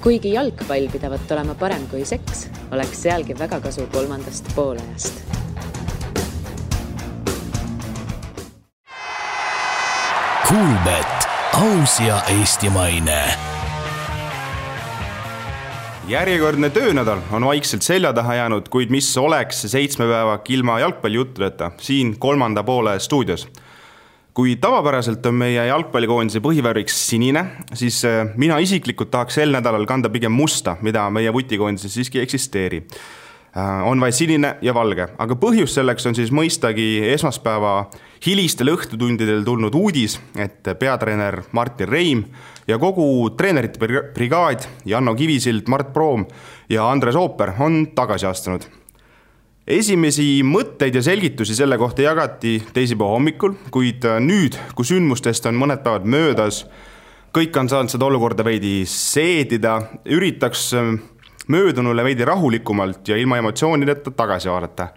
Kuigi jalgpall pidavat olema parem kui seks, oleks sealgi väga kasu kolmandast poolajast. Kuulbet, aus ja eestimaine. Järjekordne töönädal on vaikselt selja taha jäänud, kuid mis oleks 7 päeva ilma jalgpallijuttudeta siin kolmanda poole stuudios. Kui tavapäraselt on meie jalgpallikoondise põhivärviks sinine, siis mina isiklikult tahaks sel nädalal kanda pigem musta, mida meie vutikoondises siiski eksisteeri. On vaid sinine ja valge, aga põhjus selleks on siis mõistagi esmaspäeva hilistel õhtutundidel tulnud uudis, et peatreener Martin Reim ja kogu treenerite brigaad Janno Kivisild, Mart Proom ja Andres Ooper on tagasi astunud. Esimesi mõtteid ja selgitusi selle kohta jagati teisipäeva hommikul, kuid nüüd, kui sündmustest on mõned päevad möödas, kõik on saanud seda olukorda veidi seedida, üritaks möödunule veidi rahulikumalt ja ilma emotsioonideta tagasi vaadata.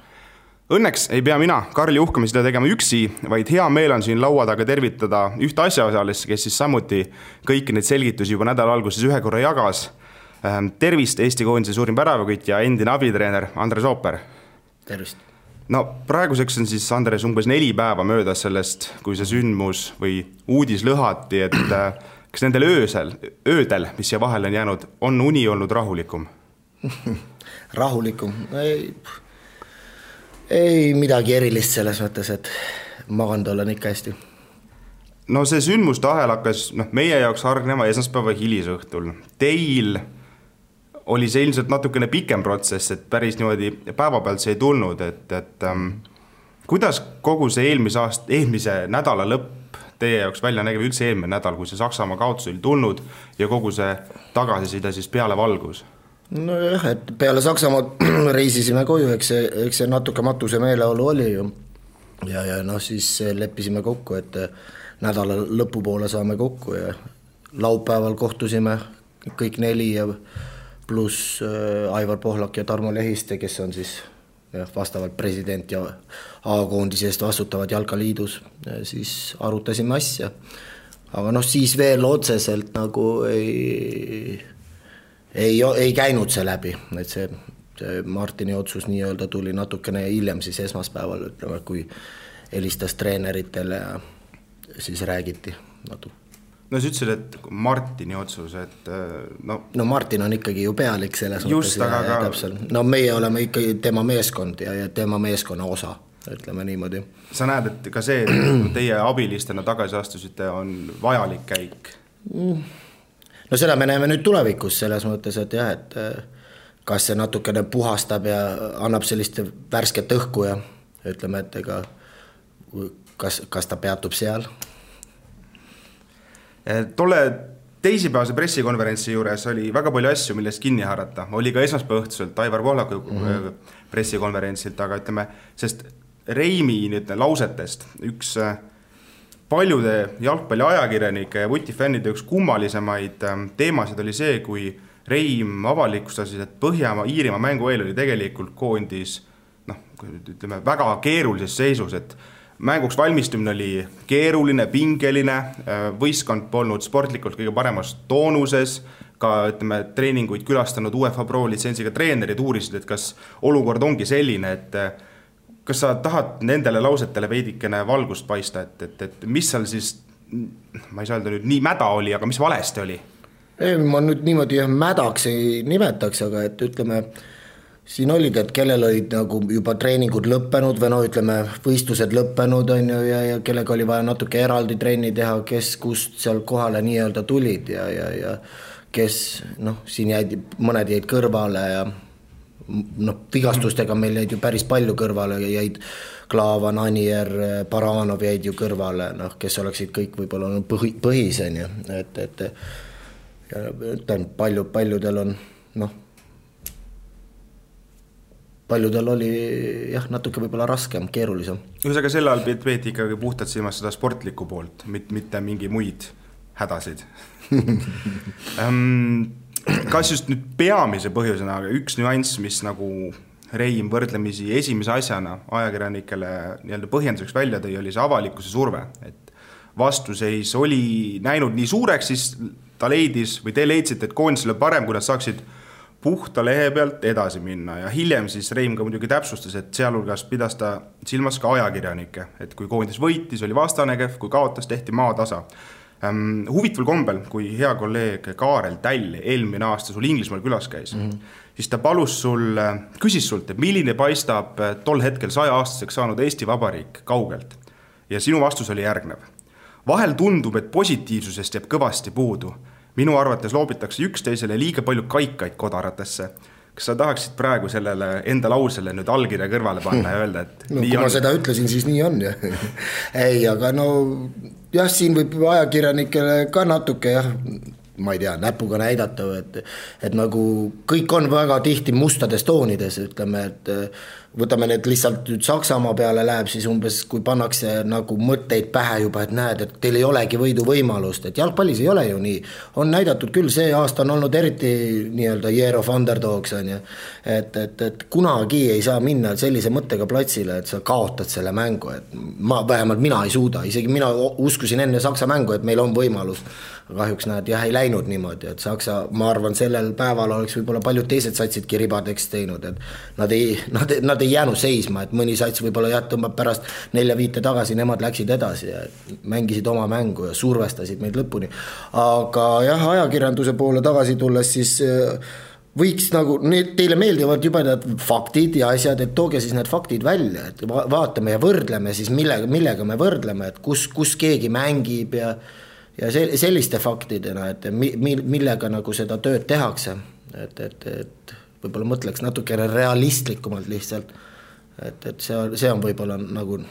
Õnneks ei pea mina, Karl Juhkami seda tegema üksi, vaid hea meel on siin laua taga tervitada ühte asjaosalist, kes siis samuti kõiki neid selgitusi juba nädala alguses ühe korra jagas. Tervist Eesti koondise suurim väravakütt ja endine abitreener Andres Ooper. Tervist. No praeguseks on siis Andres umbes 4 päeva möödas sellest, kui see sündmus või uudis lõhati, et kas nendel öödel, mis siia vahel on jäänud, on uni olnud rahulikum? Rahulikum? Ei midagi erilist selles mõttes, et maganud olen ikka hästi. No see sündmuste ahel hakkas meie jaoks hargnema esmaspäeva hilisõhtul. Teil oli see ilmselt natukene pikem protsess, et päris niimoodi päeva pealt see ei tulnud, et kuidas kogu see eelmise nädala lõpp teie jaoks välja nägeb üldse eelmine nädal, kui see Saksamaa kaotus oli tulnud ja kogu see tagasiside siis peale valgus? No jah, et peale Saksamaa reisisime koju, eks see natuke matuse meeleolu oli ju. Ja siis leppisime kokku, et nädala lõpupoole saame kokku ja laupäeval kohtusime kõik 4 ja pluss Aivar Pohlak ja Tarmo Lehiste, kes on siis vastavalt president ja A-koondise eest vastutavad Jalkaliidus, siis arutasime asja. Aga siis veel otseselt nagu ei käinud see läbi, et see Martini otsus nii-öelda tuli natukene hiljem siis esmaspäeval, ütleme, kui helistas treeneritele ja siis räägiti natuke. No sa ütlesid, et Martini otsus, et No Martin on ikkagi ju pealik selles just, mõttes. Täpselt. No meie oleme ikkagi tema meeskond ja tema meeskonna osa, ütleme niimoodi. Sa näed, et ka see, et teie abilistena tagasi astusite, on vajalik käik? No seda me näeme nüüd tulevikus selles mõttes, et jah, et kas see natukene puhastab ja annab sellist värsket õhku ja ütleme, et ega kas ta peatub seal. Tolle teisipäevase pressikonverentsi juures oli väga palju asju, millest kinni haarata. Oli ka esmaspäeva õhtuselt Aivar Pohlaku pressikonverentsilt, aga ütleme, sest Reimi lausetest üks paljude jalgpalli ajakirjanike ja vutifännide üks kummalisemaid teemasid oli see, kui Reim avalikustas, et Põhja-Iirimaa mängu eel oli tegelikult koondis ütleme, väga keerulises seisus, et mänguks valmistumine oli keeruline, pingeline, võistkond polnud sportlikult kõige paremas toonuses, ka ütleme, treeninguid külastanud UEFA Pro litsentsiga treenerid uurisid, et kas olukord ongi selline, et kas sa tahad nendele lausetele veidikene valgust paista, et mis seal siis, ma ei saa öelda nüüd nii mäda oli, aga mis valesti oli? Ei, ma nüüd niimoodi mädaks ei nimetaks, aga et ütleme, siin olid, et kellel olid nagu juba treeningud lõppenud või ütleme, võistlused lõppenud on ju, ja kellega oli vaja natuke eraldi trenni teha, kes kust seal kohale nii-öelda tulid ja kes, siin mõned jäid kõrvale ja vigastustega meil jäid ju päris palju kõrvale, jäid Klaavan, Anier, Baranov jäid ju kõrvale, kes oleksid kõik võib-olla põhisen ju, et paljudel on, paljudel oli natuke võib-olla raskem, keerulisem. Ühesõnaga selle all peeti ikkagi puhtalt silmas seda sportlikku poolt, mitte mingi muid hädasid. Kas just nüüd peamise põhjusena, aga üks nüanss, mis nagu Reim võrdlemisi esimese asjana ajakirjanikele nii-öelda põhjenduseks välja tõi, oli see avalikkuse surve, et vastuseis oli näinud nii suureks, siis ta leidis või te leidsite, et koondisele parem, kui nad saaksid puhta lehe pealt edasi minna ja hiljem siis Reim ka muidugi täpsustas, et sealhulgas pidas ta silmas ka ajakirjanikke, et kui koondis võitis, oli vastane kehv, kui kaotas, tehti maatasa. Huvitaval kombel, kui hea kolleeg Kaarel Täll eelmine aasta sul Inglismaal külas käis, siis ta küsis sult, et milline paistab tol hetkel 100-aastaseks saanud Eesti Vabariik kaugelt. Ja sinu vastus oli järgnev. Vahel tundub, et positiivsusest jääb kõvasti puudu. Minu arvates loobitakse üksteisele liiga palju kaikaid kodaratesse. Kas sa tahaksid praegu sellele enda lausele nüüd allkirja kõrvale panna ja öelda, et no, kui ma seda ütlesin, siis nii on. Ei, aga no jah, siin võib ajakirjanikele ka natuke ma ei tea, näpuga näidata, et nagu kõik on väga tihti mustades toonides, ütleme, et võtame need lihtsalt nüüd Saksamaa peale läheb, siis umbes kui pannakse nagu mõtteid pähe juba, et näed, et teil ei olegi võidu võimalust, et jalgpallis ei ole ju nii. On näidatud küll, see aasta on olnud eriti nii-öelda year of underdogs, on ju, et kunagi ei saa minna sellise mõttega platsile, et sa kaotad selle mängu, et vähemalt mina ei suuda, isegi mina uskusin enne Saksa mängu, et meil on võimalus. Kahjuks näed, ei läinud niimoodi, et Saksa, ma arvan, sellel päeval oleks võib-olla paljud teised satsidki ribadeks teinud, et nad ei jäänud seisma, et mõni sats võib-olla tõmbab pärast 4-5 tagasi, nemad läksid edasi ja mängisid oma mängu ja survestasid meid lõpuni. Aga jah, ajakirjanduse poole tagasi tulles, siis võiks nagu, teile meeldivad juba need faktid ja asjad, et tooge siis need faktid välja, et vaatame ja võrdleme siis, millega me võrdleme, et kus keegi mängib ja selliste faktidena, et millega nagu seda tööd tehakse, et võib-olla mõtleks natukene realistlikumalt lihtsalt, et see on võib-olla nagu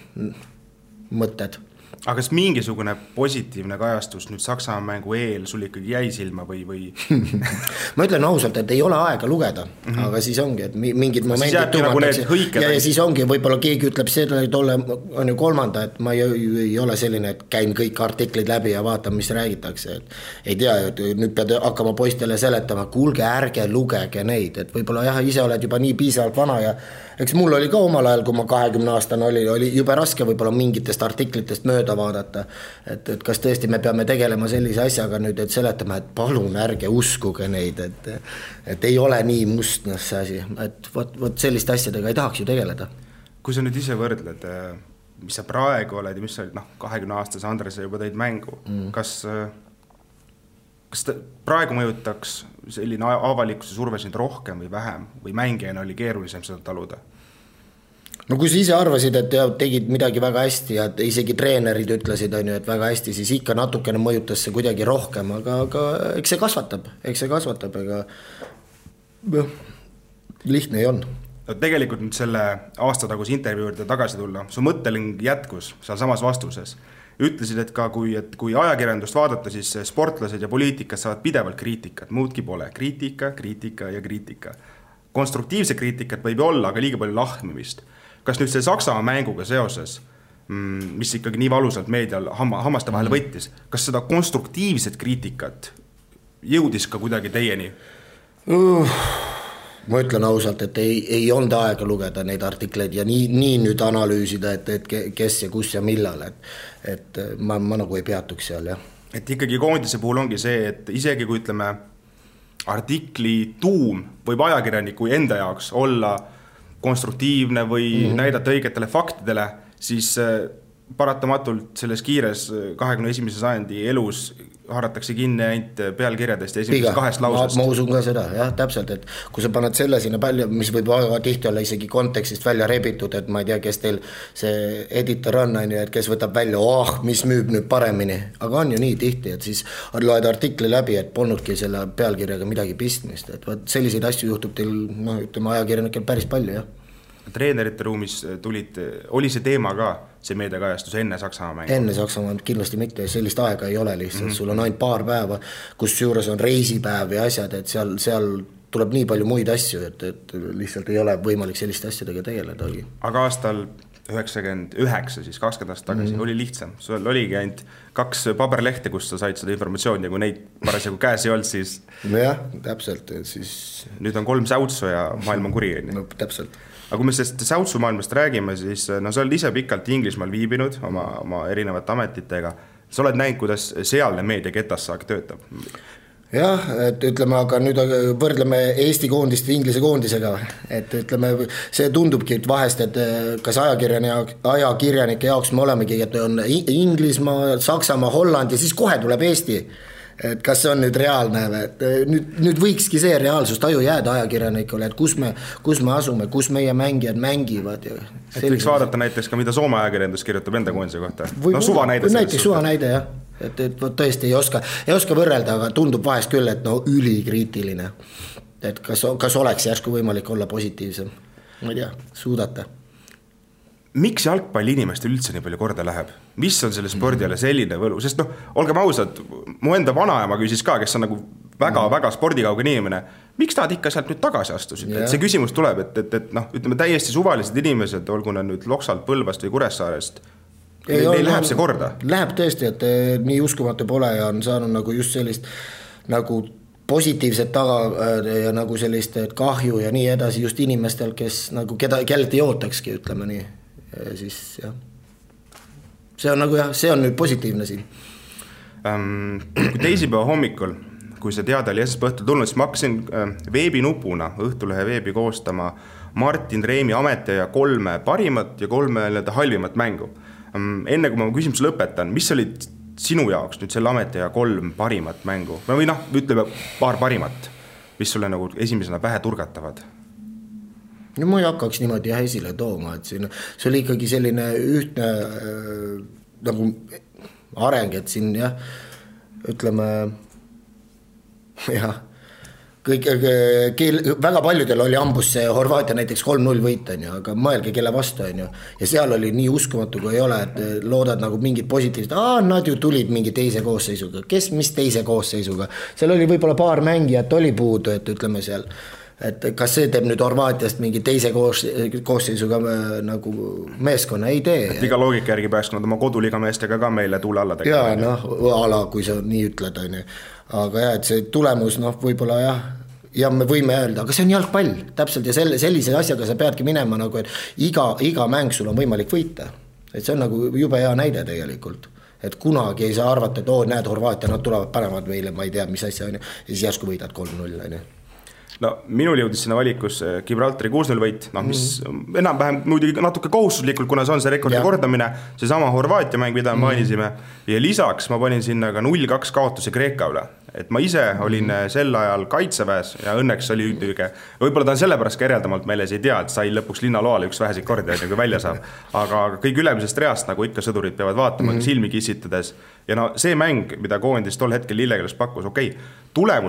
mõtted. Aga kas mingisugune positiivne kajastus nüüd Saksamaa mängu eel sul ikkagi jäi silma või? Ma ütlen ausalt, et ei ole aega lugeda, aga siis ongi, et mingid momendid tumatakse ja siis ongi, võib-olla keegi ütleb seda, et on ju kolmanda, et ma ei ole selline, et käin kõik artiklid läbi ja vaatan, mis räägitakse, et ei tea, et nüüd pead hakkama poistele seletama, kuulge, ärge lugege neid, et võib-olla jah, ise oled juba nii piisavalt vana ja eks mul oli ka omal ajal, kui ma 20-aastane oli jube raske võib-olla mingitest artiklitest mööda vaadata, et kas tõesti me peame tegelema sellise asjaga nüüd, et seletama, et palun ärge uskuge neid, et ei ole nii mustnas see asi, et võt selliste asjadega ei tahaks ju tegeleda. Kui sa nüüd ise võrdled, mis sa praegu oled ja mis sa olid 20-aastase Andrese juba tõid mängu, kas praegu mõjutaks selline avalikkuse surve sind rohkem või vähem või mängijana oli keerulisem seda taluda? No kui sa ise arvasid, et tegid midagi väga hästi ja isegi treenerid ütlesid, et väga hästi, siis ikka natukene mõjutas see kuidagi rohkem, aga eks see kasvatab, ega lihtne ei on. No, tegelikult nüüd selle aastataguse intervjuu juurde tagasi tulla, su mõtteling jätkus seal samas vastuses. Ütlesid, et ka kui ajakirjandust vaadata, siis sportlased ja poliitikas saavad pidevalt kriitikat, muudki pole. Kriitika ja kriitika. Konstruktiivse kriitikat võib olla, aga liiga palju lahmimist. Kas nüüd see Saksamaa mänguga seoses, mis ikkagi nii valusalt meedial hammaste vahel võttis, kas seda konstruktiivset kriitikat jõudis ka kuidagi teieni? Ma ütlen ausalt, et ei olnud aega lugeda neid artikleid ja nii nüüd analüüsida, et kes ja kus ja millal, et ma nagu ei peatuks seal, jah. Et ikkagi koondise puhul ongi see, et isegi kui ütleme artikli tuum võib ajakirjaniku enda jaoks olla konstruktiivne või näidata õigetele faktidele, siis paratamatult selles kiires 21. sajandi elus haaratakse kinni ainult pealkirjadest ja esimesest 2 lausest. Ma usun ka seda, jah, täpselt, et kui sa paned selle sinna palju, mis võib väga tihti olla isegi kontekstist välja rebitud, et ma ei tea, kes teil see editor on, et kes võtab välja, mis müüb nüüd paremini, aga on ju nii tihti, et siis loed artikli läbi, et polnudki selle pealkirjaga midagi pistmist, et selliseid asju juhtub teil, ütleme, ajakirjanikel päris palju, jah. Treenerite ruumis oli see teema ka, see meediakajastus enne Saksamaa mängu? Enne Saksamaa kindlasti mitte, sellist aega ei ole lihtsalt, sul on ainult paar päeva, kus juures on reisipäev ja asjad, et seal tuleb nii palju muid asju, et lihtsalt ei ole võimalik selliste asjadega tegeledagi. Aga aastal 99, siis 20 aastat tagasi, oli lihtsam. Sul oligi ainult 2 paberlehte, kus sa said seda informatsiooni ja kui neid parasjagu käes ei olnud, siis... Nojah, täpselt, siis... Nüüd on 3 säutsu ja maailm on kuri. No, täpselt. Aga kui me sellest säutsu maailmast räägime, siis sa oled ise pikalt Inglismaal viibinud oma erinevate ametitega. sa oled näinud, kuidas sealne meedia ketassaak töötab? Jah, et ütleme, aga nüüd võrdleme Eesti koondist Inglise koondisega, et ütleme, see tundubki, et vahest, et kas ajakirjanike jaoks me olemegi, et on Inglismaa, Saksamaa, Holland ja siis kohe tuleb Eesti. Et kas see on nüüd reaalne, et nüüd võikski see reaalsustaju jääda ajakirjanikule, et kus me asume, kus meie mängijad mängivad. Et võiks vaadata näiteks ka, mida Soome ajakirjandus kirjutab enda koondise kohta. Suva näide. Näiteks suva näide, jah. Et tõesti ei oska võrrelda, aga tundub vahest küll, et ülikriitiline. Et kas oleks järsku võimalik olla positiivsem? Ma ei tea, suudate. Miks jalgpalli inimestel üldse nii palju korda läheb? Mis on selle spordiale selline võlu? Sest olgem ausad, mu enda vanaema küsis ka, kes on nagu väga spordikauge inimene, miks nad ikka sealt nüüd tagasi astusid? Et see küsimus tuleb, et ütleme täiesti suvalised inimesed, olgu nad nüüd Loksalt, Põlvast või Kuressaarest, neil läheb see korda? Läheb tõesti, et nii uskumatu pole ja on saanud nagu just sellist nagu positiivset taga ja nagu sellist kahju ja nii edasi just inimestel, kes nagu kellelt ei ootakski, ütleme nii. Ja siis jah, see on nagu jah, see on nüüd positiivne siin. Kui teisipäeva hommikul, kui see teada oli esmaspäeva õhtul tulnud, siis ma hakkasin veebinupuna Õhtulehe veebi koostama Martin Reimi ametiaja 3 parimat ja 3 halvimat mängu. Enne kui ma küsimuse lõpetan, mis olid sinu jaoks nüüd selle ametiaja 3 parimat mängu? Või ütleme paar parimat, mis sulle nagu esimesena pähe turgatavad? No ma ei hakkaks niimoodi esile tooma, et see oli ikkagi selline ühtne nagu areng, et siin jah, ütleme jah, väga paljudel oli ambus see Horvaatia näiteks 3-0 võit, aga mõelge kelle vastu, ja seal oli nii uskumatu, kui ei ole, et loodad nagu mingid positiivsed, nad ju tulid mingi teise koosseisuga, mis teise koosseisuga, seal oli võib-olla paar mängijat oli puudu, et ütleme seal, et kas see teeb nüüd Horvaatiast mingi teise koosseisuga nagu meeskonna, ei tee. Et iga loogika järgi pääks nad oma koduliga meestega ka meile tuule alla tegema. Jaa, kui sa nii ütled, aga jah, et see tulemus võib-olla jah, ja me võime öelda, aga see on jalgpall täpselt ja sellise asjaga sa peadki minema nagu, et iga mäng sul on võimalik võita, et see on nagu jube hea näide tegelikult, et kunagi ei saa arvata, et näed Horvaatia, nad tulevad panevad meile, ma ei tea, mis asja on ja siis järsku võidad 3-0. No minul jõudis sinna valikus Gibraltari 6-0 võit, mis enam-vähem muidugi natuke kohustuslikult, kuna see on see rekordi kordamine, see sama Horvaatia mäng, mida mainisime, ja lisaks ma panin sinna ka 0-2 kaotuse Kreeka üle. Et ma ise olin sel ajal kaitseväes ja õnneks oli võib-olla ta on sellepärast ka ereldamalt meeles ei tea, et sai lõpuks linnaloale üks väheseid kordi, kui välja saab. Aga kõik ülemisest reast, nagu ikka sõdurid peavad vaatama silmi kissitades. Ja see mäng, mida koondis tol hetkel Lillekeles pakkus,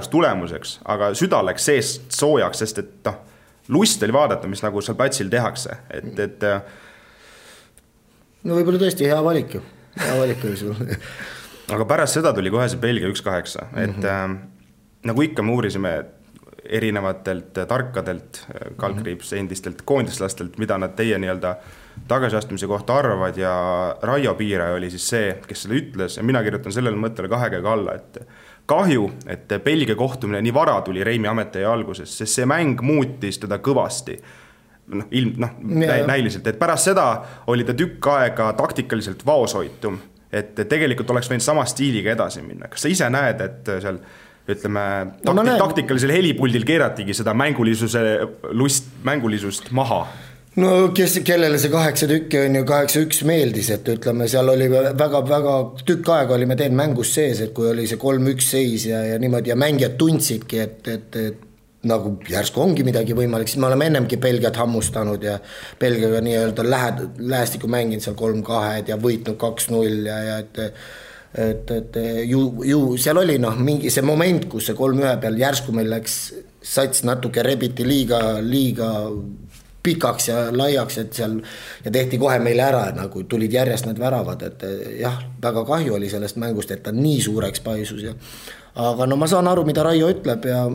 tulemuseks, aga süda läks seest soojaks, sest et lust oli vaadata, mis nagu seal platsil tehakse. No võib-olla tõesti hea valik oli sul. Aga pärast seda tuli kohe see Belgia 1-8, et nagu ikka me uurisime erinevatelt tarkadelt kalkriips endistelt koondislastelt, mida nad teie tagasiastumise kohta arvavad ja Raio Piire oli siis see, kes selle ütles ja mina kirjutan sellele mõttele 2 käega alla, et kahju, et Belgia kohtumine nii vara tuli Reimi ametiaja alguses, sest see mäng muutis teda kõvasti. Näiliselt, et pärast seda oli ta tükk aega taktikaliselt vaoshoitum, et tegelikult oleks võinud sama stiiliga edasi minna. Kas sa ise näed, et seal ütleme, taktikalisel helipuldil keeratigi seda mängulisust maha? No kellele see 8 tükki on ju 8-1 meeldis, et ütleme, seal oli väga tükk aega oli me teen mängus sees, et kui oli see 3-1 seis ja niimoodi ja mängijad tundsidki, et nagu järsku ongi midagi võimalik, siis me oleme ennemgi Belgiat hammustanud ja Belgiaga nii-öelda lähestikku mänginud seal 3-2 ja võitnud 2-0 ja et ju seal oli mingi see moment, kus see 3-1 peal järsku meil läks sats natuke rebiti liiga pikaks ja laiaks, et seal ja tehti kohe meile ära, nagu tulid järjest need väravad, et jah, väga kahju oli sellest mängust, et ta nii suureks paisus ja aga ma saan aru, mida Raio ütleb ja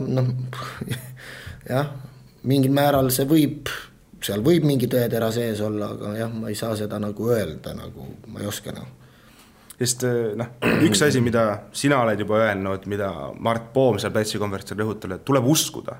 jah, mingil määral see seal võib mingi tõetera sees olla, aga jah, ma ei saa seda nagu öelda, nagu ma ei oska . Sest üks asi, mida sina oled juba öelnud, mida Mart Poom seal pätsikonverentsil rõhutab, et tuleb uskuda.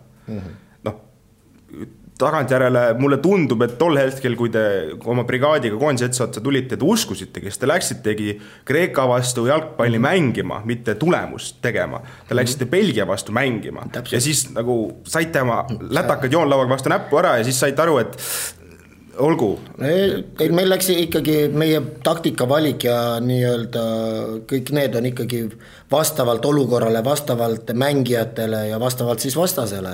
tagantjärele mulle tundub, et tol hetkel, kui te oma brigaadiga koondise otsa tulite, te uskusite, kes te läksitegi Kreeka vastu jalgpalli mängima, mitte tulemust tegema. Te läksite Belgia vastu mängima. Ja siis nagu saite oma lätakad joonlauaga vastu näppu ära ja siis saite aru, et olgu. Meil läks ikkagi meie taktika valik ja nii-öelda kõik need on ikkagi vastavalt olukorrale, vastavalt mängijatele ja vastavalt siis vastasele,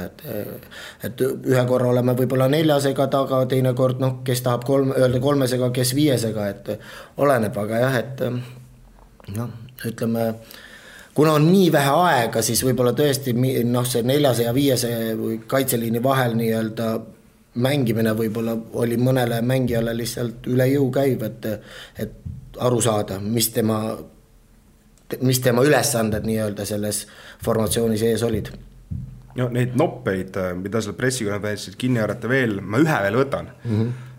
et ühe korra oleme võib-olla 4-sega taga, teine kord, kes tahab öelda 3-sega, kes 5-sega, et oleneb, aga jah, et ütleme, kuna on nii vähe aega, siis võib-olla tõesti see 4 ja 5 kaitseliini vahel nii-öelda mängimine võib-olla oli mõnele mängijale lihtsalt üle jõu käiv, et aru saada, mis tema ülesanded nii-öelda selles formatsioonis ees olid. No, neid noppeid, mida seal pressikonverentsid kinni haarata veel, ma ühe veel võtan.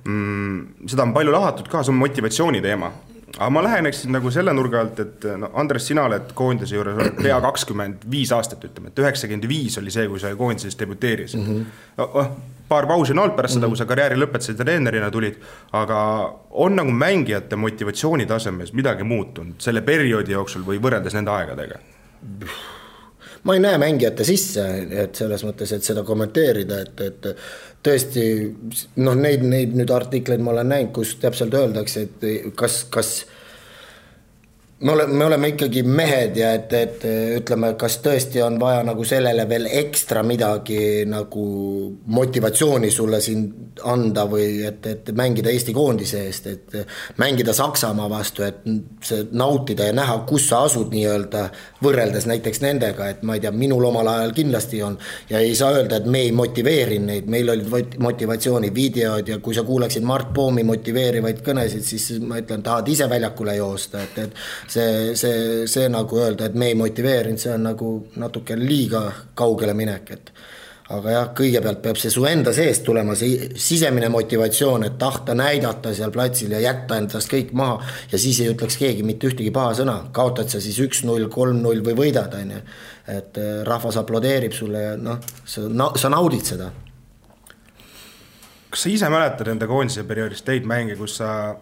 Seda on palju lahatud ka, see on motivatsiooni teema. Aga ma läheneksin nagu selle nurga alt, et Andres, sina oled koondise juures pea 25 aastat, ütleme, et 95 oli see, kui sa koondises debuteeris. Paar pausi on olnud pärast seda, kui sa karjääri lõpetasid ja treenerina tulid, aga on nagu mängijate motivatsiooni tasemes midagi muutunud selle perioodi jooksul või võrreldes nende aegadega? Ma ei näe mängijate sisse, et selles mõttes, et seda kommenteerida, et tõesti, neid nüüd artikleid ma olen näinud, kus täpselt öeldakse, et kas me oleme ikkagi mehed ja et ütleme, kas tõesti on vaja nagu sellele veel ekstra midagi nagu motivatsiooni sulle siin anda või et mängida Eesti koondise eest, et mängida Saksamaa vastu, et see nautida ja näha, kus sa asud nii-öelda võrreldes näiteks nendega, et ma ei tea, minul omal ajal kindlasti on ja ei saa öelda, et me ei motiveeri neid, meil olid motivatsiooni videod ja kui sa kuuleksid Mart Poomi motiveerivaid kõnesid, siis ma ütlen, tahad ise väljakule joosta, et see nagu öelda, et me ei motiveerinud, see on nagu natuke liiga kaugele minek, et aga jah, kõigepealt peab see su enda seest tulema, see sisemine motivatsioon, et tahta näidata seal platsil ja jätta endast kõik maha ja siis ei ütleks keegi mitte ühtegi paha sõna, kaotad sa siis 1-0, 3-0 või võidad, et rahvas aplodeerib sulle ja sa naudid seda. Kas sa ise mäletad enda koondise perioodist teid mänge, kus sa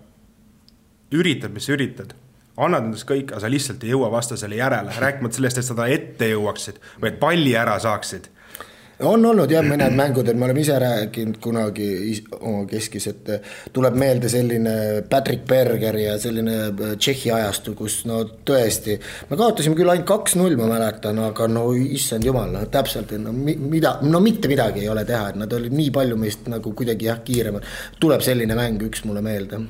üritad, mis sa üritad? Annad endast kõik, aga sa lihtsalt ei jõua vastasele järele, rääkimata sellest, et seda ette jõuaksid või et palli ära saaksid. On olnud jah mõned mängud, et me oleme ise rääkinud kunagi oma keskis, et tuleb meelde selline Patrick Berger ja selline Tšehhi ajastu, kus tõesti, me kaotasime küll ainult 2-0, ma mäletan, aga issand jumal, täpselt, mitte midagi ei ole teha, et nad olid nii palju meist nagu kuidagi kiiremad. Tuleb selline mäng üks mulle meelde.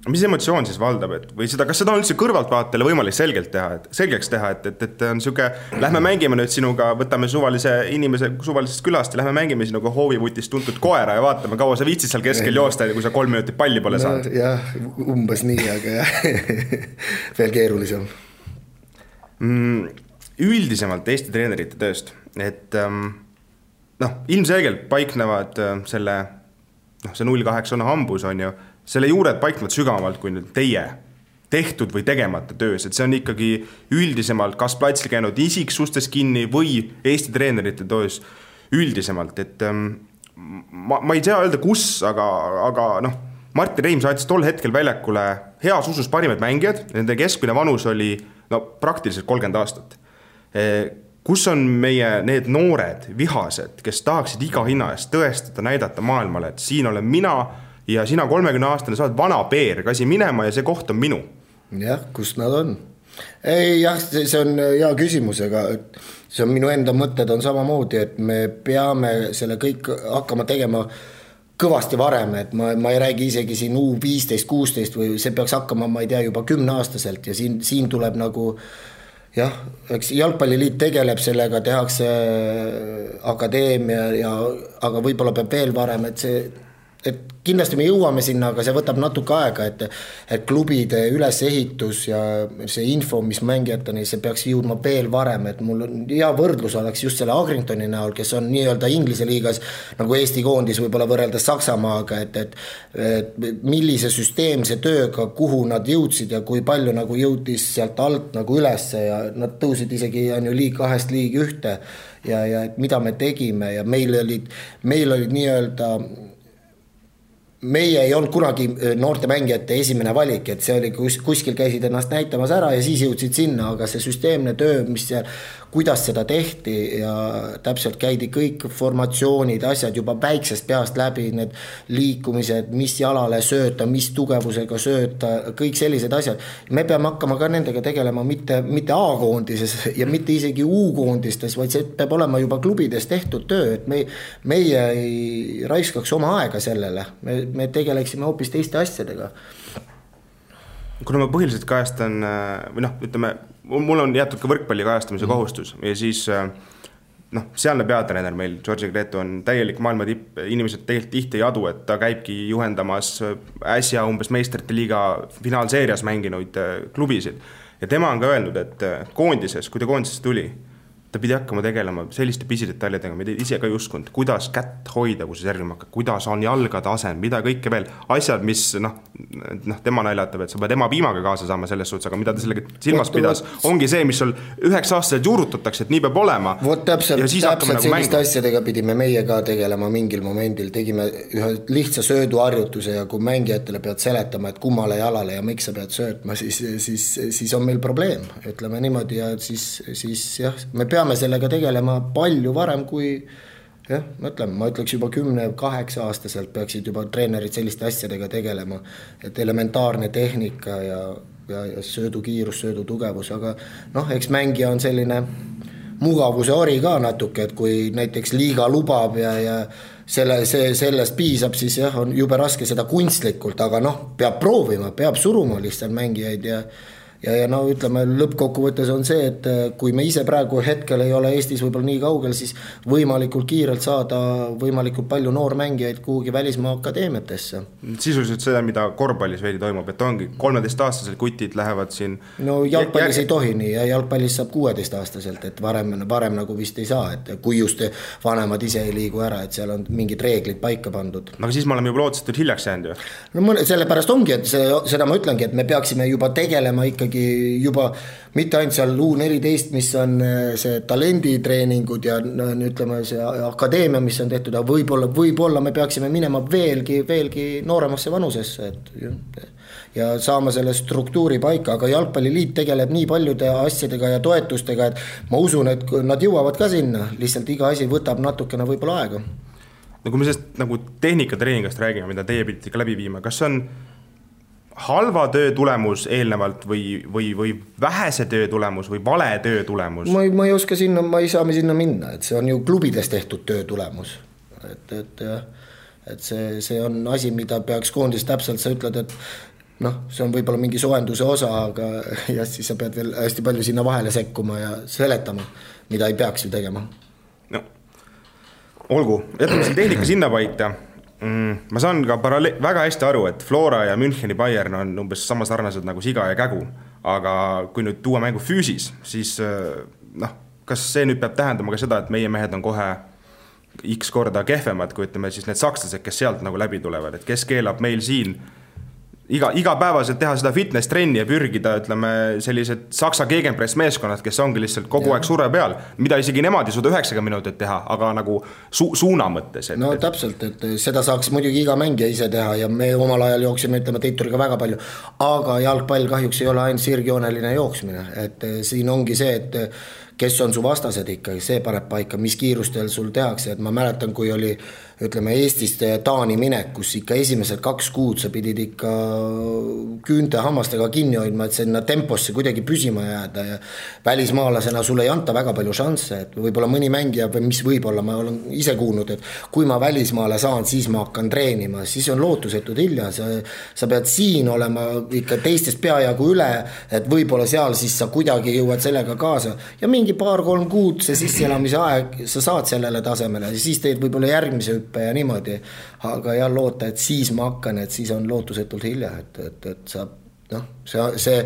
Mis emotsioon siis valdab, või seda, kas seda on üldse kõrvaltvaatele võimalik selgeks teha, et on siuke, lähme mängime nüüd sinuga, võtame suvalise inimese suvalisest külast ja lähme mängime sinuga hoovivutist tuntud koera ja vaatame, kaua sa viitsid seal keskel joosta, kui sa 3 minutit palli pole saanud. Jah, umbes nii, aga jah, veel keerulisem. Üldisemalt Eesti treenerite tööst, et ilmselgelt paiknevad see 0-8 on hambus, on ju, selle juured paiknevad sügavamalt kui nüüd teie tehtud või tegemata töös, et see on ikkagi üldisemalt kas platsil käinud isiksustes kinni või Eesti treenerite töös üldisemalt, et ma ei tea öelda kus, aga Martin Reim saatis tol hetkel väljakule heas usus parimad mängijad, nende keskmine vanus oli praktiliselt 30 aastat. Kus on meie need noored vihased, kes tahaksid iga hinna eest tõestada, näidata maailmale, et siin olen mina ja sina 30-aastane saad vana peer, kasi minema ja see koht on minu. Jah, kus nad on? Ei, jah, see on hea küsimus, aga see on minu enda mõtted on samamoodi, et me peame selle kõik hakkama tegema kõvasti varem, et ma ei räägi isegi siin U15-16 või see peaks hakkama, ma ei tea, juba 10-aastaselt ja siin tuleb nagu jah, eks jalgpalliliit tegeleb sellega, tehakse akadeemia aga võib-olla peab veel varem, et see et kindlasti me jõuame sinna, aga see võtab natuke aega, et klubide ülesehitus ja see info, mis mängijateni, see peaks jõudma veel varem, et mul on hea võrdlus oleks just selle Agringtoni näol, kes on nii-öelda Inglise liigas nagu Eesti koondis võib-olla võrreldes Saksamaaga, et millise süsteemse tööga, kuhu nad jõudsid ja kui palju nagu jõudis sealt alt nagu ülesse ja nad tõusid isegi on ju liig 2 liig 1 ja et mida me tegime ja meil olid nii-öelda meie ei olnud kunagi noorte mängijate esimene valik, et see oli kuskil käisid ennast näitamas ära ja siis jõudsid sinna, aga see süsteemne töö, mis seal, kuidas seda tehti ja täpselt käidi kõik formatsioonid, asjad juba väiksest peast läbi, need liikumised, mis jalale sööta, mis tugevusega sööta, kõik sellised asjad. Me peame hakkama ka nendega tegelema mitte A-koondises ja mitte isegi U-koondistes, vaid see peab olema juba klubides tehtud töö, et meie ei raiskaks oma aega sellele, me tegeleksime hoopis teiste asjadega. Kuna ma põhiliselt kajastan, või ütleme, mul on jätud ka võrkpalli kajastamise kohustus ja siis sealne peatreener meil, Georgi Gretu on täielik maailma tipp, inimesed tegelikult tihti ei adu, et ta käibki juhendamas äsja umbes meistrite liiga finaalseerias mänginuid klubisid ja tema on ka öelnud, et koondises, kui ta koondisest tuli, ta pidi hakkama tegelema selliste pisidetailidega, mida ise ka ei uskunud, kuidas kätt hoida, kui see servima hakkab, kuidas on jalgade asend, mida kõike veel, asjad, mis tema naljatab, et sa pead ema piimaga kaasa saama selles suhtes, aga mida ta sellega silmas pidas, ongi see, mis sul 9-aastaselt juurutatakse, et nii peab olema. Vot täpselt selliste asjadega pidime meie ka tegelema mingil momendil, tegime ühe lihtsa sööduharjutuse ja kui mängijatele pead seletama, et kummale jalale ja miks sa pead söötma, siis on meil probleem, ütleme niimoodi ja siis jah, me peame sellega tegelema palju varem kui ma ütleks juba 10-8 aastaselt peaksid juba treenerid selliste asjadega tegelema, et elementaarne tehnika ja söödukiirus, söödutugevus, aga eks mängija on selline mugavuse ori ka natuke, et kui näiteks liiga lubab ja sellest piisab, siis jah, on jube raske seda kunstlikult, aga peab proovima, peab suruma lihtsalt mängijaid ja ütleme, lõppkokkuvõttes on see, et kui me ise praegu hetkel ei ole Eestis võib-olla nii kaugel, siis võimalikult kiirelt saada võimalikult palju noormängijaid kuhugi välismaa akadeemiatesse. Sisuliselt seda, mida korvpallis veidi toimub, et ongi 13-aastasel kutid lähevad siin... No jalgpallis ei tohi nii ja jalgpallis saab 16-aastaselt, et varem nagu vist ei saa, et kui just vanemad ise ei liigu ära, et seal on mingid reeglid paika pandud. Aga siis me oleme juba lootsetult hiljaks jäänud ju? No sellepärast ongi, et seda ma ütlengi, et me peaksime juba tegelema ikkagi juba mitte ainult seal U14, mis on see talenditreeningud ja ütleme see akadeemia, mis on tehtud, aga võib-olla me peaksime minema veelgi nooremasse vanusesse ja saama selle struktuuri paika, aga jalgpalliliit tegeleb nii paljude asjadega ja toetustega, et ma usun, et nad jõuavad ka sinna, lihtsalt iga asi võtab natukene võib-olla aega. No kui me sellest nagu tehnikatreeningast räägime, mida teie pidite ka läbi viima, kas on halva töö tulemus eelnevalt või vähese töö tulemus või vale töö tulemus? Ma ei oska sinna, ma ei saa me sinna minna, et see on ju klubides tehtud töö tulemus. Et see on asi, mida peaks koondis täpselt, sa ütled, et see on võib-olla mingi soojenduse osa, aga ja siis sa pead veel hästi palju sinna vahele sekkuma ja seletama, mida ei peaks ju tegema. No, olgu, jätame selle tehnika sinna paita. Ma saan ka väga hästi aru, et Flora ja Müncheni Bayern on umbes sama sarnased nagu siga ja kägu, aga kui nüüd tuua mängu füüsis, siis kas see nüüd peab tähendama ka seda, et meie mehed on kohe X korda kehvemad, kui ütleme siis need sakslased, kes sealt nagu läbi tulevad, et kes keelab meil siin igapäevaselt teha seda fitness-trenni ja pürgida, ütleme, sellised saksa gegenpress meeskonnad, kes ongi lihtsalt kogu aeg surve peal, mida isegi nemad ei suuda 90 minutit teha, aga nagu suuna mõttes. No täpselt, et seda saaks muidugi iga mängija ise teha ja me omal ajal jooksime, ütleme, Teituriga väga palju, aga jalgpall kahjuks ei ole ainult sirgjooneline jooksmine, et siin ongi see, et kes on su vastased ikka, see paneb paika, mis kiirustel sul tehakse, et ma mäletan, kui oli ütleme Eestist Taani minek, kus ikka esimesed 2 kuud sa pidid ikka küünte hammastega kinni hoidma, et sinna temposse kuidagi püsima jääda ja välismaalasena sulle ei anta väga palju šansse, et võib-olla mõni mängija või mis võib-olla, ma olen ise kuulnud, et kui ma välismaale saan, siis ma hakkan treenima, siis on lootusetud hilja, sa pead siin olema ikka teistest peajagu üle, et võib-olla seal siis sa kuidagi jõuad sellega kaasa ja mingi mingi 2-3 kuud see sisseelamise aeg, sa saad sellele tasemele ja siis teed võib-olla järgmise hüppe ja niimoodi, aga jah, loota, et siis ma hakkan, et siis on lootusetult hilja, et sa noh, see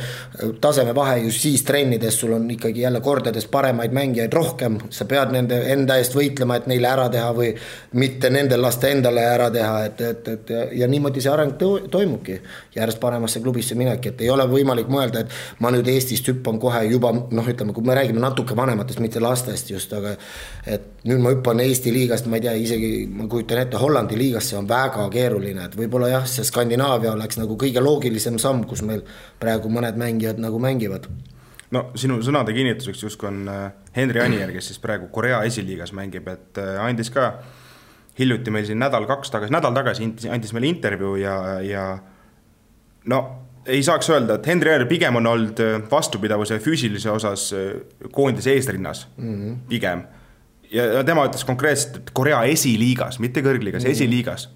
taseme vahe just siis trennides sul on ikkagi jälle kordades paremaid mängijaid rohkem, sa pead nende enda eest võitlema, et neile ära teha või mitte nendel lasta endale ära teha, et ja niimoodi see areng toimubki järjest paremasse klubisse mineki, et ei ole võimalik mõelda, et ma nüüd Eestist hüppan kohe juba, noh ütleme, kui me räägime natuke vanematest, mitte lastest just, aga et nüüd ma hüppan Eesti liigast, ma ei tea, isegi ma kujutan ette Hollandi liigast, see on väga keeruline, et võib-olla jah, see Skandinaavia oleks nagu kõige loogilisem samm, kus meil praegu mõned mängijad nagu mängivad. No sinu sõnade kinnituseks justkui on Henri Anier, kes siis praegu Korea esiliigas mängib, et andis ka hiljuti meil siin nädal tagasi andis meile intervjuu ja no ei saaks öelda, et Henri Anier pigem on olnud vastupidavuse füüsilise osas koondise eesrinnas pigem. Ja tema ütles konkreetselt, et Korea esiliigas, mitte kõrgliigas, esiliigas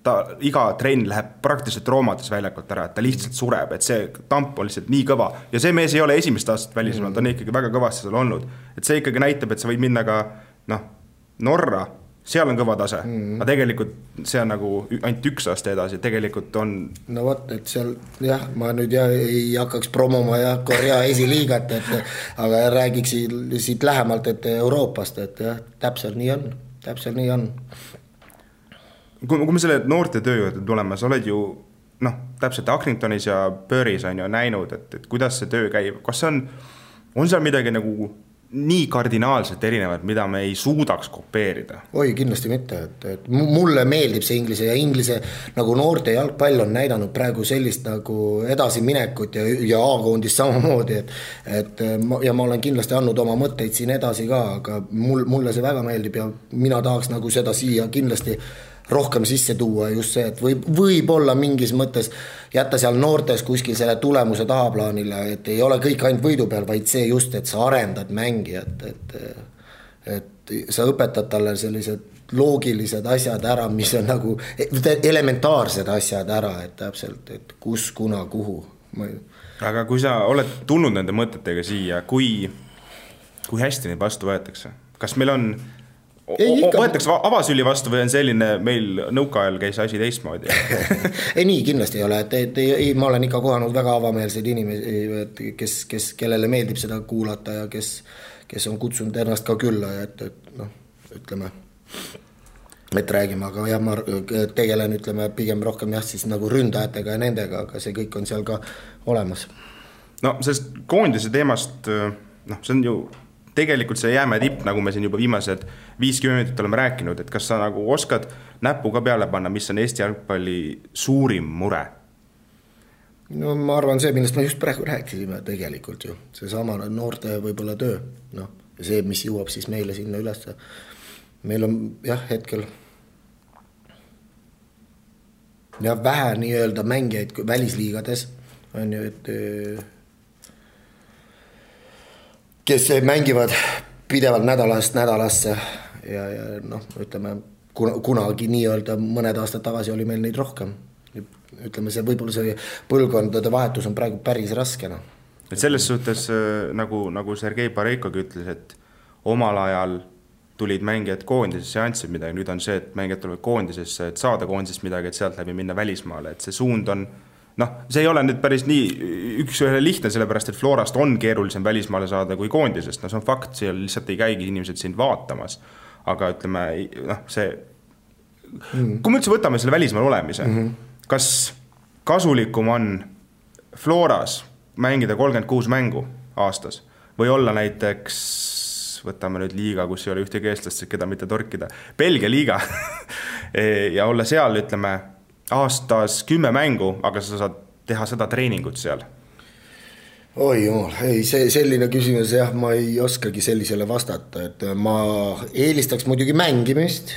ta iga trenn läheb praktiliselt roomades väljakult ära, et ta lihtsalt sureb, et see tamp on lihtsalt nii kõva ja see mees ei ole esimest aastat välismaal, ta on ikkagi väga kõvasti seal olnud, et see ikkagi näitab, et sa võid minna ka Norra, seal on kõva tase, aga tegelikult see on nagu ainult 1 aasta edasi, tegelikult on no vot, et seal jah, ma nüüd ei hakkaks promoma Korea esiliigat, aga räägiks siit lähemalt, et Euroopast, et jah, täpselt nii on. Kui me selle noorte töö juurde tuleme, sa oled ju täpselt Accringtonis ja Burys on ju näinud, et kuidas see töö käib, kas on seal midagi nagu nii kardinaalselt erinevad, mida me ei suudaks kopeerida? Oi, kindlasti mitte, et mulle meeldib see inglise nagu noorte jalgpall on näidanud praegu sellist nagu edasiminekut ja A-koondist samamoodi, ja ma olen kindlasti andnud oma mõtteid siin edasi ka, aga mulle see väga meeldib ja mina tahaks nagu seda siia kindlasti rohkem sisse tuua just see, et võib-olla mingis mõttes jätta seal noortes kuskil selle tulemuse tahaplaanile, et ei ole kõik ainult võidu peal, vaid see just, et sa arendad mängijat, et sa õpetad talle sellised loogilised asjad ära, mis on nagu elementaarsed asjad ära, et täpselt, et kus, kuna, kuhu. Aga kui sa oled tulnud nende mõtetega siia, kui hästi neid vastu võetakse? Kas meil on võetakse avasüli vastu või on selline meil nõukaajal käis asi teistmoodi? Ei nii kindlasti ei ole, ma olen ikka kohanud väga avameelseid inimesi, kellele meeldib seda kuulata ja kes on kutsunud ennast ka külla ja et ütleme, et räägime, aga jah, ma tegelen pigem rohkem siis nagu ründajatega ja nendega, aga see kõik on seal ka olemas. No sellest koondise teemast, see on ju tegelikult see jääme tipp, nagu me siin juba viimased 50 minutit oleme rääkinud, et kas sa nagu oskad näppu ka peale panna, mis on Eesti jalgpalli suurim mure? No ma arvan see, millest me just praegu rääkisime tegelikult ju, see sama noorte võib-olla töö, ja see, mis jõuab siis meile sinna üles. Meil on jah hetkel vähe nii-öelda mängijaid välisliigades, on ju, et kes mängivad pidevalt nädalast nädalasse ja ütleme, kunagi nii-öelda mõned aastad tagasi oli meil neid rohkem. Ütleme, see võib-olla see põlvkondade vahetus on praegu päris raskena. Et selles suhtes, nagu Sergei Pareikogi ütles, et omal ajal tulid mängijad koondisesse ja andsid midagi, nüüd on see, et mängijad tulevad koondisesse, et saada koondisest midagi, et sealt läbi minna välismaale, et see suund on see ei ole nüüd päris nii üks lihtne, sellepärast, et Florast on keerulisem välismaale saada kui koondisest, see on fakt, seal lihtsalt ei käigi inimesed sind vaatamas, aga ütleme, see kui me üldse võtame selle välismaal olemise, kas kasulikum on Floras mängida 36 mängu aastas või olla näiteks, võtame nüüd liiga, kus ei ole ühtegi eestlast, keda mitte torkida, Belgia liiga ja olla seal, ütleme, aastas 10 mängu, aga sa saad teha seda treeningut seal? Oi jumal, ei, see selline küsimus, jah, ma ei oskagi sellisele vastata, et ma eelistaks muidugi mängimist,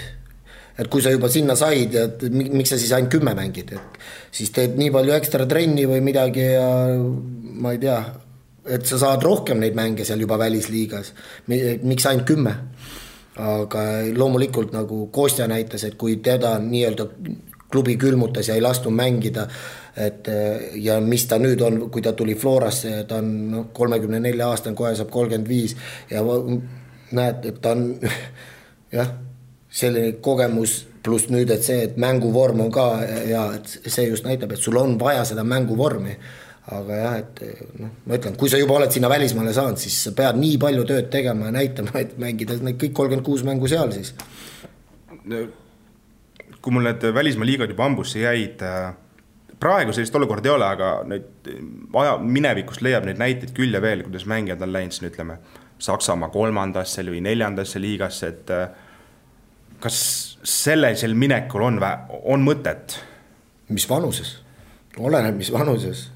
et kui sa juba sinna said, et miks sa siis ainult 10 mängid, et siis teed nii palju ekstra trenni või midagi ja ma ei tea, et sa saad rohkem neid mänge seal juba välisliigas, miks ainult 10? Aga loomulikult nagu Kostja näitas, et kui teda nii-öelda klubi külmutas ja ei lastu mängida, et ja mis ta nüüd on, kui ta tuli Florasse, ta on 34 aastane, kohe saab 35 ja näed, et ta on jah, selline kogemus pluss nüüd, et see, et mänguvorm on ka ja et see just näitab, et sul on vaja seda mänguvormi, aga jah, et ma ütlen, kui sa juba oled sinna välismaale saanud, siis sa pead nii palju tööd tegema ja näitama, et mängida need kõik 36 mängu seal siis. Kui mul need välismaa liigad juba ambusse jäid, praegu sellist olukorda ei ole, aga neid minevikust leiab neid näiteid küll ja veel, kuidas mängijad on läinud siin, ütleme, Saksamaa 3. või 4. liigasse, et kas sellisel minekul on mõtet? Mis vanuses? Oleneb, mis vanuses.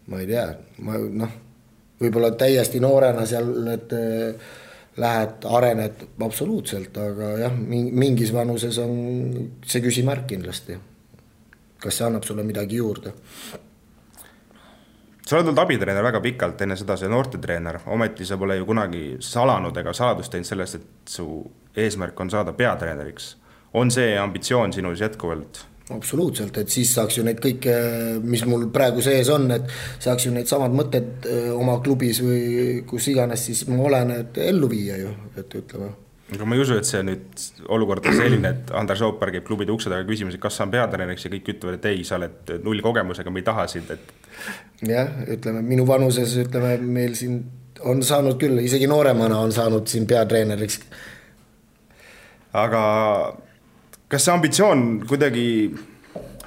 Ma ei tea, võib-olla täiesti noorena seal, et lähed, arened absoluutselt, aga jah, mingis vanuses on see küsimärk kindlasti. Kas see annab sulle midagi juurde? Sa oled olnud abitreener väga pikalt, enne seda see noortetreener, ometi sa pole ju kunagi salanud ega saladust teinud sellest, et su eesmärk on saada peatreeneriks. On see ambitsioon sinus jätkuvalt? Absoluutselt, et siis saaks ju neid kõike, mis mul praegu sees on, et saaks ju neid samad mõtted oma klubis või kus iganes, siis ma olen, et ellu viia ju, et ütleme. Aga ma ei usu, et see nüüd olukord on selline, et Andres Oopar käib klubide ukse taga küsimus, et kas sa on peatreeneriks ja kõik ütlevad, et ei, sa oled 0 kogemusega, me ei taha sind, et... Jah, ütleme, minu vanuses, ütleme, meil siin on saanud küll, isegi nooremana on saanud siin peatreeneriks. Aga kas see ambitsioon kuidagi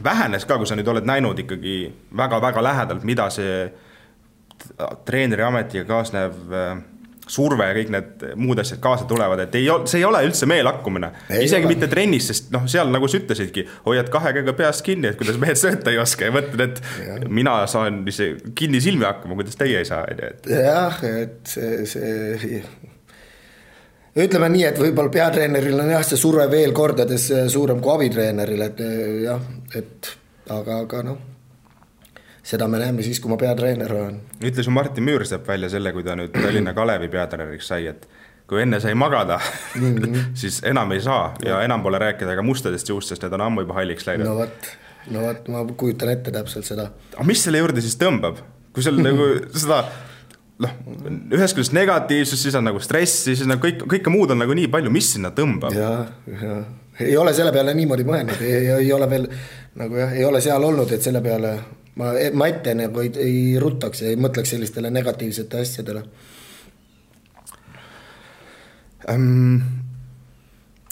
vähenes ka, kui sa nüüd oled näinud ikkagi väga-väga lähedalt, mida see treeneri ametiga kaasnev surve ja kõik need muud asjad kaasa tulevad, et see ei ole üldse meelakkumine. Isegi mitte trennis, sest seal nagu sa ütlesidki, hoiad 2 käega peast kinni, et kuidas mehed sööta ei oska ja mõtled, et mina saan kinni silmi hakkama, kuidas teie ei saa. Jah, et see ütleme nii, et võib-olla peatreeneril on jah, see surve veel kordades suurem kui abitreeneril, et jah, et aga seda me näeme siis, kui ma peatreener olen. Ütles ju Martin Müürsepp välja selle, kui ta nüüd Tallinna Kalevi peatreeneriks sai, et kui enne sai magada, siis enam ei saa ja enam pole rääkida ka mustadest juust, sest need on ammu juba halliks läinud. No võt, ma kujutan ette täpselt seda. Aga mis selle juurde siis tõmbab? Kui seal nagu seda, ühes küljest negatiivsus, siis on nagu stress, siis on kõike muud on nagu nii palju, mis sinna tõmbab? Ja. Ei ole selle peale niimoodi mõelnud, ei ole veel, nagu jah, ei ole seal olnud, et selle peale ma ette nagu ei ruttaks ja ei mõtleks sellistele negatiivsete asjadele.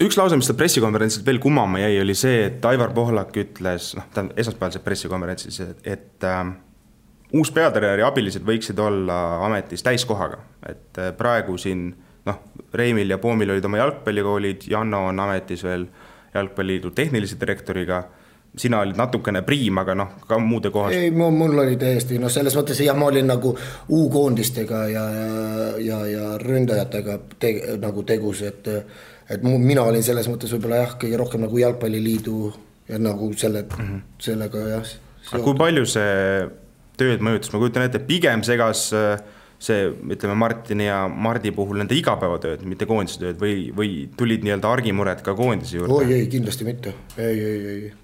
Üks lause, mis ta pressikonverentsilt veel kummama jäi, oli see, et Aivar Pohlak ütles, esmaspäevalised pressikonverentsis, et uus peatreeneri abilised võiksid olla ametis täiskohaga, et praegu siin Reimil ja Poomil olid oma jalgpallikoolid, Janno on ametis veel jalgpalliliidu tehnilise direktoriga, sina olid natukene priim, aga ka muude kohas. Ei, mul oli täiesti, selles mõttes ma olin nagu U-koondistega ja ründajatega nagu tegus, et mina olin selles mõttes võib-olla jah, kõige rohkem nagu jalgpalliliidu ja nagu sellega jah. Aga kui palju see tööd mõjutas? Ma kujutan ette, pigem segas see, ütleme Martini ja Mardi puhul nende igapäevatööd, mitte koondise tööd või tulid nii-öelda argimured ka koondise juurde? Ei, kindlasti mitte. Ei.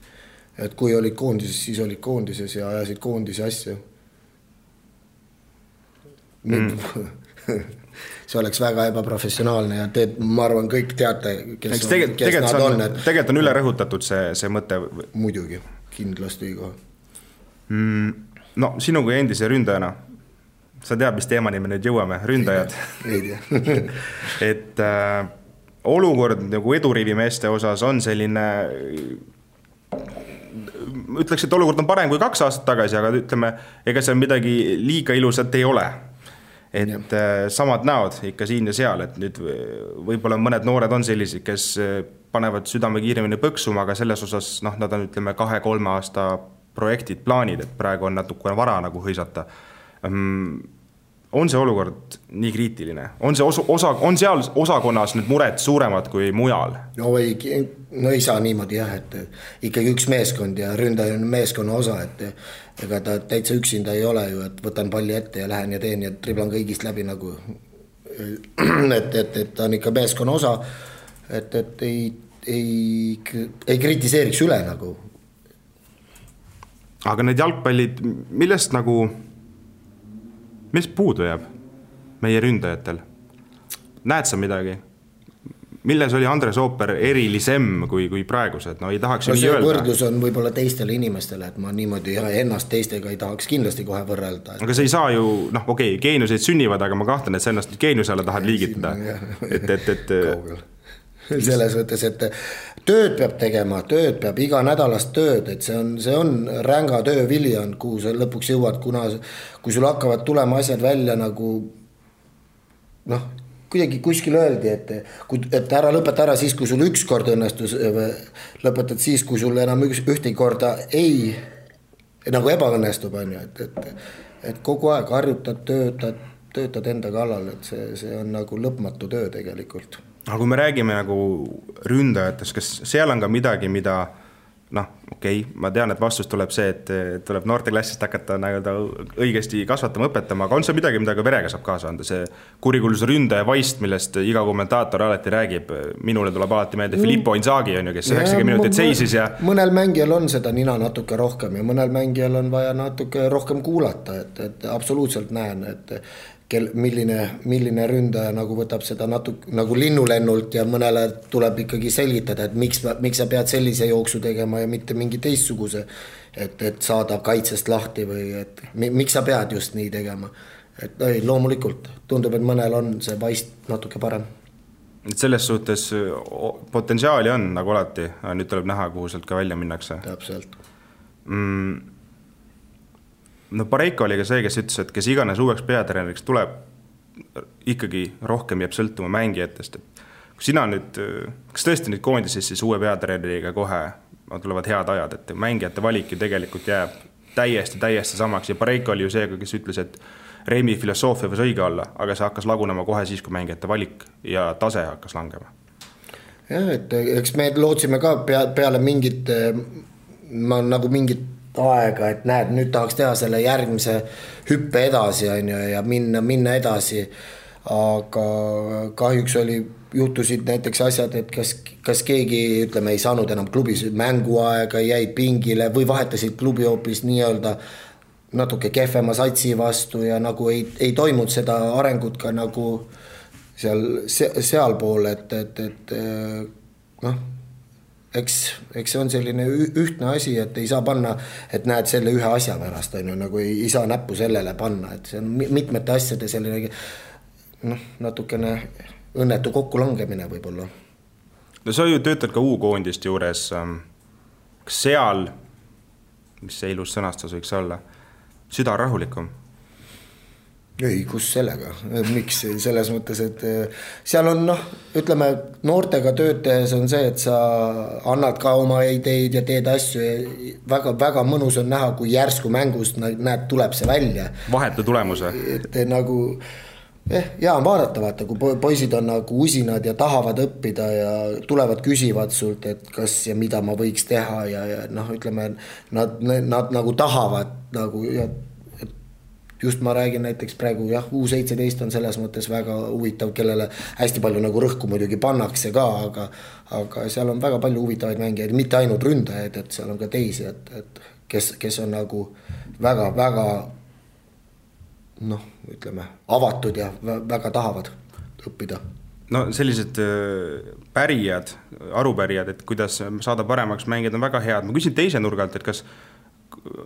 Et kui olid koondises, siis olid koondises ja ajasid koondise asja. See oleks väga ebaprofessionaalne ja ma arvan, kõik teate, kes nad on. Tegelikult on üle rõhutatud see mõte. Muidugi, kindlasti ka. Sinu kui endise ründajana, sa tead, mis teemani me nüüd jõuame, ründajad. Ei tea. Et olukord nagu eduriivimeeste osas on selline... Ütleks, et olukord on parem kui 2 aastat tagasi, aga ütleme, ega see midagi liiga ilusat ei ole. Et samad näod ikka siin ja seal, et nüüd võib-olla mõned noored on sellised, kes panevad südame kiiremini põksuma, aga selles osas nad on, ütleme, 2-3 aasta projektid, plaanid, et praegu on natukene vara nagu hõisata. On see olukord nii kriitiline? On seal osakonnas nüüd mured suuremad kui mujal? No ei saa niimoodi jah, et ikkagi üks meeskond ja ründaja on meeskonna osa, et ega ta täitsa üksinda ei ole ju, et võtan palli ette ja lähen ja teen ja triblan kõigist läbi nagu, et ta on ikka meeskonna osa, et ei kritiseeriks üle nagu, aga need jalgpallid, millest puudu jääb meie ründajatel? Näed sa midagi? Milles oli Andres Ooper erilisem kui praegused? No ei tahaks ju nii öelda. Võrdlus on võib-olla teistele inimestele, et ma niimoodi ennast teistega ei tahaks kindlasti kohe võrrelda. Aga see ei saa ju, geeniuseid sünnivad, aga ma kahtlen, et sa ennast geeniuse alla tahad liigitada. Kaugel. Selles võttes, et tööd peab tegema, tööd peab iga nädalast tööd, et see on ränga töö viljan, kuhu sa lõpuks jõuad, kui sul hakkavad tulema asjad välja nagu kuidagi kuskil öeldi, et ära lõpeta ära siis, kui sul üks kord õnnestus, lõpetad siis, kui sul enam ühtegi korda ei nagu ebaõnnestub, et kogu aeg harjutad, töötad enda kallal, et see on nagu lõpmatu töö tegelikult. Aga kui me räägime nagu ründajatest, kas seal on ka midagi, mida ma tean, et vastus tuleb see, et tuleb noorteklassist hakata õigesti kasvatama, õpetama, aga on see midagi, mida ka verega saab kaasa anda, see kurikuulus ründaja vaist, millest iga kommentaator alati räägib, minule tuleb alati meelde Filippo Inzaghi, kes 90 minutit seisis ja... Mõnel mängijal on seda nina natuke rohkem ja mõnel mängijal on vaja natuke rohkem kuulata, et absoluutselt näen, et milline ründaja nagu võtab seda natuke nagu linnulennult ja mõnele tuleb ikkagi selgitada, et miks sa pead sellise jooksu tegema ja mitte mingi teistsuguse, et saada kaitsest lahti või et miks sa pead just nii tegema. Et loomulikult tundub, et mõnel on see vaist natuke parem. Et selles suhtes potentsiaali on nagu alati, nüüd tuleb näha, kuhu sealt ka välja minnakse. Täpselt. Pareiko oli ka see, kes ütles, et kes iganes uueks peatreeneriks tuleb, ikkagi rohkem jääb sõltuma mängijatest. Kui sina nüüd, kas tõesti nüüd koondises siis uue peatreeneriga kohe tulevad head ajad, et mängijate valik ju tegelikult jääb täiesti samaks ja Pareiko oli ju see, kes ütles, et Reimi filosoofia võis õige olla, aga see hakkas lagunema kohe siis, kui mängijate valik ja tase hakkas langema. Jah, et eks me lootsime ka peale mingit aega, et näed, nüüd tahaks teha selle järgmise hüppe edasi ja minna edasi, aga kahjuks juhtusid näiteks asjad, et kas keegi, ütleme, ei saanud enam klubis mänguaega, jäid pingile või vahetasid klubi hoopis nii-öelda natuke kehvema satsi vastu ja nagu ei toimunud seda arengut ka nagu sealpool, et eks see on selline ühtne asi, et ei saa panna, et näed selle ühe asja pärast, nagu ei saa näppu sellele panna, et see on mitmete asjade selline natukene õnnetu kokkulangemine võib-olla. No sa ju töötad ka U-koondist juures, kas seal, mis see ilus sõnastus võiks olla, süda rahulikum? Ei, kus sellega, miks selles mõttes, et seal on ütleme, noortega töötajas on see, et sa annad ka oma ideid ja teed asju ja väga mõnus on näha, kui järsku mängust näed, tuleb see välja. Vahetu tulemuse. Et nagu, on vaadata, kui poisid on nagu usinad ja tahavad õppida ja tulevad küsivad sult, et kas ja mida ma võiks teha ja ütleme, nad nagu tahavad nagu just ma räägin näiteks praegu, U17 on selles mõttes väga huvitav, kellele hästi palju nagu rõhku muidugi pannakse ka, aga seal on väga palju huvitavaid mängijaid, mitte ainult ründajaid, et seal on ka teisi, et kes on nagu väga ütleme, avatud ja väga tahavad õppida. No sellised pärijad, arupärijad, et kuidas saada paremaks mängijad on väga head. Ma küsin teise nurgalt, et kas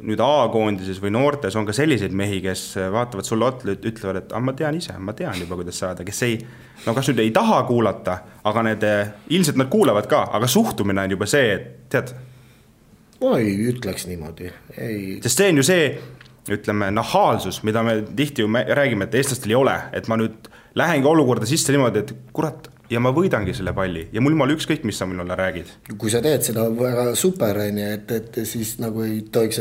nüüd A-koondises või noortes on ka selliseid mehi, kes vaatavad sulle otle, ütlevad, et ma tean ise, ma tean juba, kuidas saada, kes kas nüüd ei taha kuulata, aga ilmselt nad kuulavad ka, aga suhtumine on juba see, et tead? Ma ei ütleks niimoodi. Sest see on ju see, ütleme, nahaalsus, mida me tihti ju räägime, et eestlastel ei ole, et ma nüüd lähengi olukorda sisse niimoodi, et kurat, ja ma võidangi selle palli ja mul mal ükskõik, mis sa mulle räägid. Kui sa teed seda väga super, et siis nagu ei tohiks,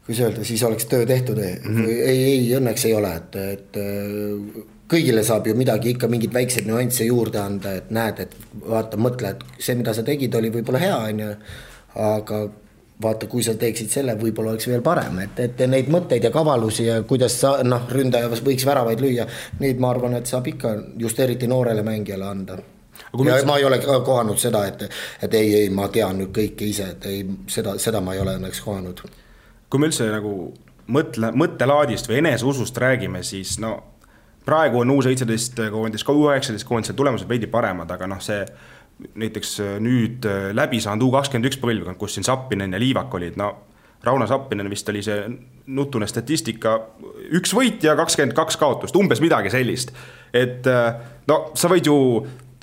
kui see öelda, siis oleks töö tehtud. Ei, õnneks ei ole, et kõigile saab ju midagi ikka mingid väiksed nüansse juurde anda, et näed, et vaata, mõtle, et see, mida sa tegid, oli võib-olla hea, aga vaata, kui sa teeksid selle, võib-olla oleks veel parem, et neid mõtteid ja kavalusi ja kuidas ründaja võiks väravaid lüüa, neid ma arvan, et saab ikka just eriti noorele mängijale anda. ja ma ei ole kohanud seda, et ei, ma tean nüüd kõike ise, et ei, seda ma ei ole õnneks kohanud. Kui me üldse nagu mõttelaadist või eneseusust räägime, siis praegu on U17 koondis, ka U19 koondis tulemused veidi paremad, aga see näiteks nüüd läbi saanud U21 põlvkond, kus siin Sappinen ja Liivak olid, Rauno Sappinen vist oli see nutune statistika, 1 võit ja 22 kaotust, umbes midagi sellist. Et sa võid ju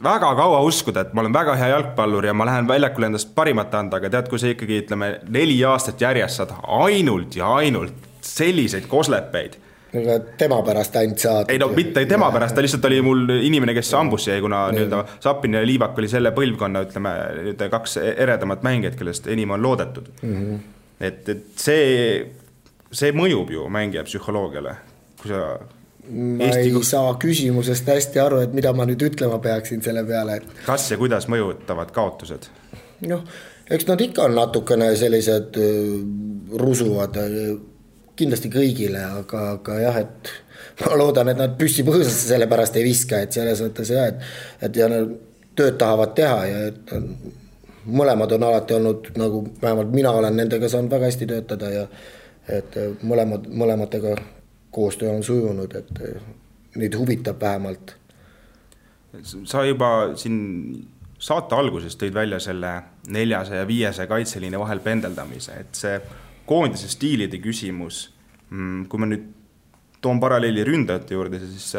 väga kaua uskuda, et ma olen väga hea jalgpallur ja ma lähen väljakule endast parimat anda, aga tead, kui sa ikkagi 4 aastat järjest saad ainult ja ainult selliseid koslepeid. Aga tema pärast ainult saad. Ei mitte tema pärast, ta lihtsalt oli mul inimene, kes ambusse jäi, kuna Sappinen ja Liivak oli selle põlvkonna, 2 eredamat mängijad, kellest enim on loodetud. Et see mõjub ju mängija psühholoogiale, kui sa ma ei saa küsimusest hästi aru, et mida ma nüüd ütlema peaksin selle peale, et kas ja kuidas mõjutavad kaotused? Eks nad ikka on natukene sellised rusuvad kindlasti kõigile, aga jah, et ma loodan, et nad püsti põõsasse selle pärast ei viska, et selles mõttes et ja nad tööd tahavad teha ja et mõlemad on alati olnud, nagu vähemalt mina olen nendega saanud väga hästi töötada ja et mõlematega koostöö on sujunud, et neid huvitab vähemalt. Sa juba siin saate alguses tõid välja selle 400 ja 500 kaitseliini vahel pendeldamise, et see koondise stiilide küsimus, kui ma nüüd toon paralleeli ründajate juurde, siis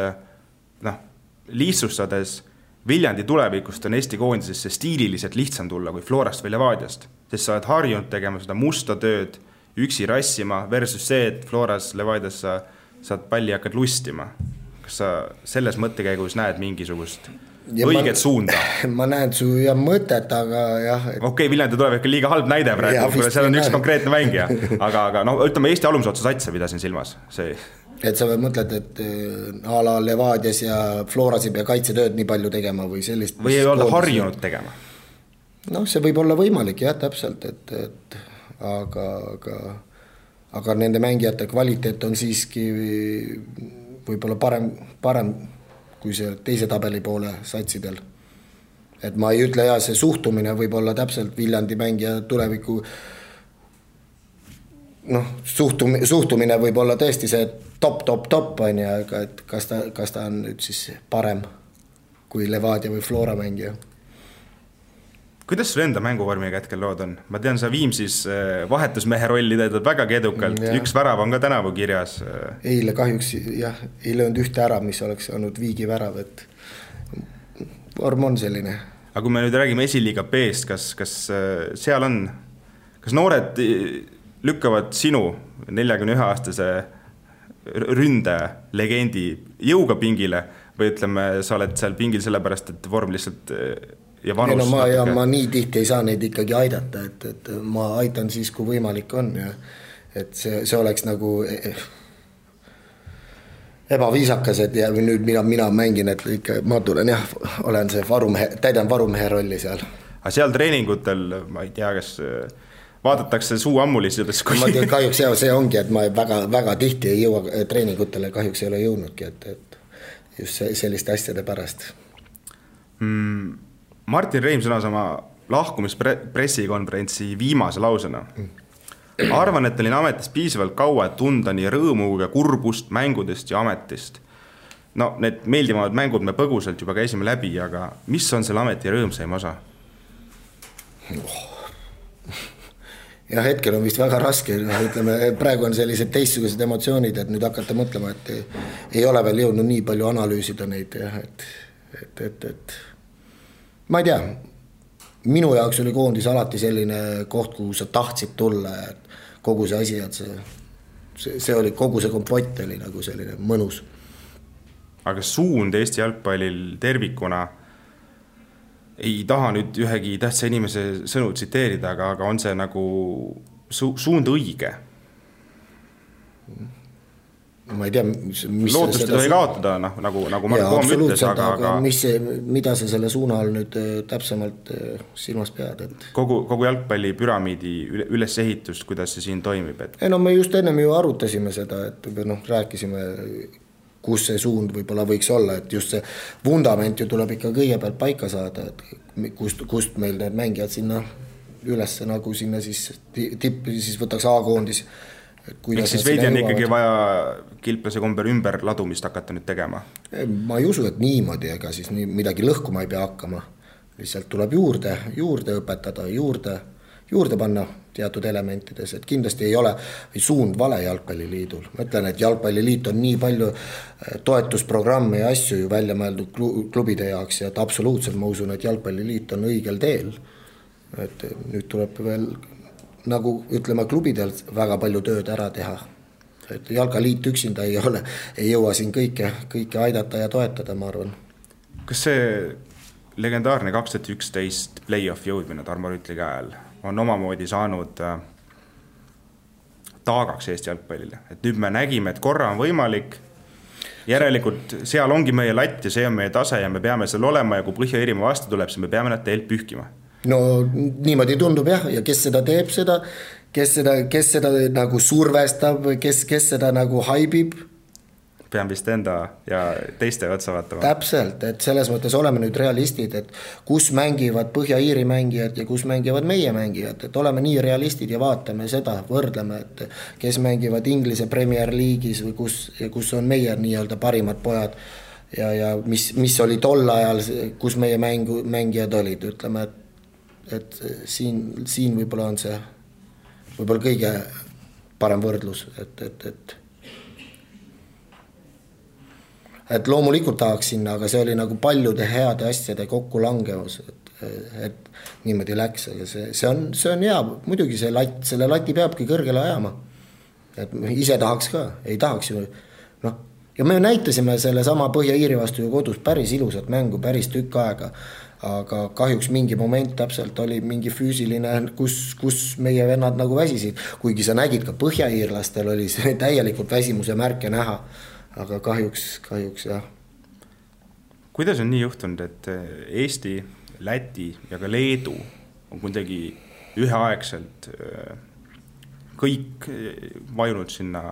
lihtsustades Viljandi tulevikust on Eesti koondisesse stiililiselt lihtsam tulla kui Florast või Levadiast, sest sa oled harjunud tegema seda musta tööd, üksi rassima versus see, et Floras, Levadias sa saad palli hakkad lustima. Kas sa selles mõttekäigus näed mingisugust õiget suunda? Ma näen su mõtet, aga jah. Okei, Viljandi tuleb ikka liiga halb näide praegu, seal on üks konkreetne mängija. Aga ütleme Eesti alumisotsa satsa pidasin silmas. Et sa mõtled, et a la Levadias ja Floras ei pea kaitsetööd nii palju tegema või sellist. Või ei ole harjunud tegema? See võib olla võimalik, jah, täpselt, aga nende mängijate kvaliteet on siiski võib-olla parem kui see teise tabeli poole satsidel. Et ma ei ütle, see suhtumine võib olla täpselt Viljandi mängija tuleviku suhtumine võib olla tõesti see top on ja et kas ta on nüüd siis parem kui Levadia või Flora mängija. Kuidas sul enda mänguvormiga hetkel lood on? Ma tean, sa Viimsis vahetusmehe rolli teedad väga edukalt, üks värav on ka tänavu kirjas. Eile kahjuks ei löönud ühte ära, mis oleks olnud Viigi värav, et vorm on selline. Aga kui me nüüd räägime esiliiga B-st, kas seal on, kas noored lükkavad sinu 41-aastase ründelegendi jõuga pingile või ütleme, sa oled seal pingil sellepärast, et vorm lihtsalt ja vanus ma nii tihti ei saa neid ikkagi aidata, et ma aitan siis, kui võimalik on ja et see oleks nagu ebaviisakas, et ja nüüd mina mängin, et ikka ma tulen olen see täidan varumehe rolli seal. Aga seal treeningutel, ma ei tea, kas vaadatakse suu ammulisidest ma tean, kahjuks see ongi, et ma väga tihti ei jõua treeningutele, kahjuks ei ole jõudnudki, et just selliste asjade pärast. Martin Reim sõnas oma lahkumispressikonverentsi viimase lausena. Arvan, et olin ametis piisavalt kaua, et tunda nii rõõmu ja kurbust mängudest ja ametist. Need meeldivamad mängud me põgusalt juba käisime läbi, aga mis on selle ameti rõõmsaim osa? Ja hetkel on vist väga raske, ütleme, praegu on sellised teistsugused emotsioonid, et nüüd hakata mõtlema, et ei ole veel jõudnud nii palju analüüsida neid, et ma ei tea, minu jaoks oli koondis alati selline koht, kuhu sa tahtsid tulla, et kogu see asi, et see oli, kogu see kompott oli nagu selline mõnus. Aga suund Eesti jalgpallil tervikuna, ei taha nüüd ühegi tähtsa inimese sõnu tsiteerida, aga on see nagu suund õige? Ma ei tea, lootust ei tohi kaotada, nagu Marko Poom ütles, aga mida sa selle suuna all nüüd täpsemalt silmas pead? Kogu jalgpalli püramiidi ülesehitust, kuidas see siin toimib? Me just ennem ju arutasime seda, et rääkisime, kus see suund võib-olla võiks olla, et just see vundament ju tuleb ikka kõigepealt paika saada, et kust meil need mängijad sinna üles nagu sinna siis tippi siis võtaks A-koondis. Miks siis veidi on ikkagi vaja kilplase komber ümber ladumist hakata nüüd tegema? Ma ei usu, et niimoodi, ega siis midagi lõhkuma ei pea hakkama. Lihtsalt tuleb juurde õpetada, juurde panna teatud elementides, et kindlasti ei ole suund vale jalgpalliliidul. Ma ütlen, et jalgpalliliit on nii palju toetusprogramme ja asju ju välja mõeldud klubide jaoks ja et absoluutselt ma usun, et jalgpalliliit on õigel teel. Et nüüd tuleb veel nagu ütleme klubidel väga palju tööd ära teha. Et jalgaliit üksinda ei jõua siin kõike aidata ja toetada, ma arvan. Kas see legendaarne 2011 play-off jõudmine Tarmo Rüütli käel on omamoodi saanud taagaks Eesti jalgpallile? Et nüüd me nägime, et korra on võimalik, järelikult seal ongi meie latt ja see on meie tase ja me peame seal olema ja kui Põhja-Iirimaa vastu tuleb, siis me peame nad teilt pühkima. No niimoodi tundub jah, ja kes seda teeb seda, kes seda nagu survestab, kes seda nagu haibib. Pean vist enda ja teiste otsa vaatama. Täpselt, et selles mõttes oleme nüüd realistid, et kus mängivad Põhja-Iiri mängijad ja kus mängivad meie mängijad, et oleme nii realistid ja vaatame seda, võrdleme, et kes mängivad Inglise Premier League'is või kus on meie nii-öelda parimad pojad ja mis oli tol ajal, kus meie mängijad olid, ütleme, et siin võib-olla on see võib-olla kõige parem võrdlus, et loomulikult tahaks sinna, aga see oli nagu paljude heade asjade kokkulangevus, et niimoodi läks, aga see on hea, muidugi selle lati peabki kõrgele ajama, et ise tahaks ka, ei tahaks ju, ja me näitasime selle sama Põhja-Iiri vastu ju kodus päris ilusat mängu, päris tükk aega, aga kahjuks mingi moment täpselt oli mingi füüsiline, kus meie vennad nagu väsisid, kuigi sa nägid ka põhja-iirlastel oli see täielikult väsimuse märke näha, aga kahjuks jah. Kuidas on nii juhtunud, et Eesti, Läti ja ka Leedu on kuidagi üheaegselt kõik vajunud sinna,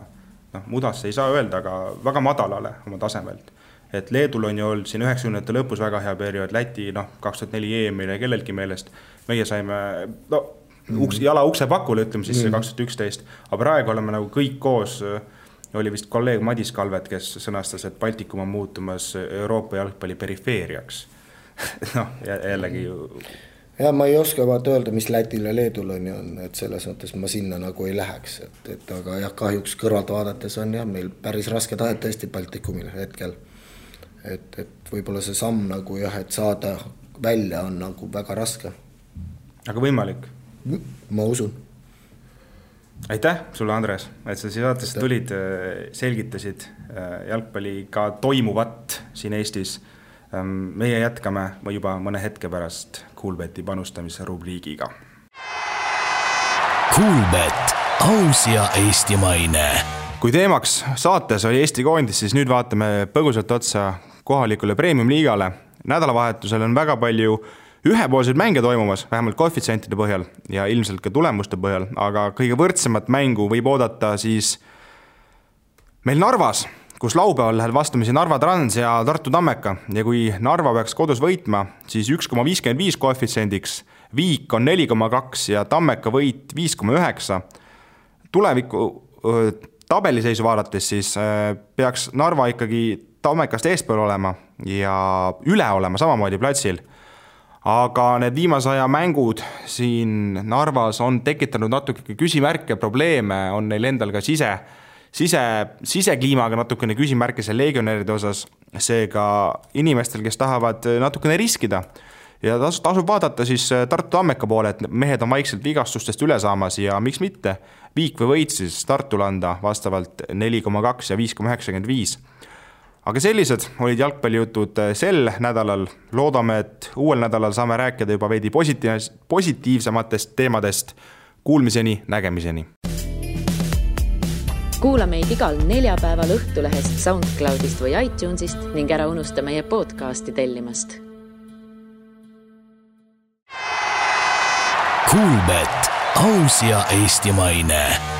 mudasse ei saa öelda, aga väga madalale oma tasemelt? Et Leedul on ju olnud siin 90. lõpus väga hea periood, Läti 2004 EM-ile kellelgi meelest. Meie saime jala ukse pakule, ütleme siis 2011, aga praegu oleme nagu kõik koos, oli vist kolleeg Madis Kalvet, kes sõnastas, et Baltikum on muutumas Euroopa jalgpalli perifeeriaks. Jällegi ju... Ja ma ei oska vaata öelda, mis Lätil ja Leedul on, et selles mõttes ma sinna nagu ei läheks, aga jah, kahjuks kõrvalt vaadates on jah, meil päris raske tahet tõesti Baltikumil hetkel. Et võib-olla see samm nagu jah, et saada välja on nagu väga raske. Aga võimalik? Ma usun. Aitäh sulle, Andres, et sa saatest tulid, selgitasid jalgpalliga toimuvat siin Eestis. Meie jätkame juba mõne hetke pärast Kuulbeti panustamise rubriigiga. Kuulbet, aus ja eestimaine. Kui teemaks saates oli Eesti koondis, siis nüüd vaatame põgusalt otsa kohalikule premium-liigale. Nädalavahetusel on väga palju ühepoolseid mänge toimumas, vähemalt koefitsientide põhjal ja ilmselt ka tulemuste põhjal, aga kõige võrdsemat mängu võib oodata siis meil Narvas, kus laupäeval läheb vastamisi Narva Trans ja Tartu Tammeka ja kui Narva peaks kodus võitma, siis 1,55 koefitsiendiks, Viik on 4,2 ja Tammeka võit 5,9. Tuleviku tabeliseisu vaadates siis peaks Narva ikkagi Tammekast eespool olema ja üle olema samamoodi platsil. Aga need viimase aja mängud siin Narvas on tekitanud natuke küsimärke, probleeme, on neil endal ka sisekliimaga natukene küsimärke seal legionäride osas, seega inimestel, kes tahavad natukene riskida. Ja tasub vaadata siis Tartu Tammeka poole, et mehed on vaikselt vigastustest üle saamas ja miks mitte Viik või võit siis Tartul anda vastavalt 4,2 ja 5,95. Aga sellised olid jalgpallijutud sel nädalal. Loodame, et uuel nädalal saame rääkida juba veidi positiivsematest teemadest. Kuulmiseni, nägemiseni. Kuula meid igal neljapäeval Õhtulehest, SoundCloudist või iTunesist ning ära unusta meie podcasti tellimast. Kuulbet, aus ja eestimaine.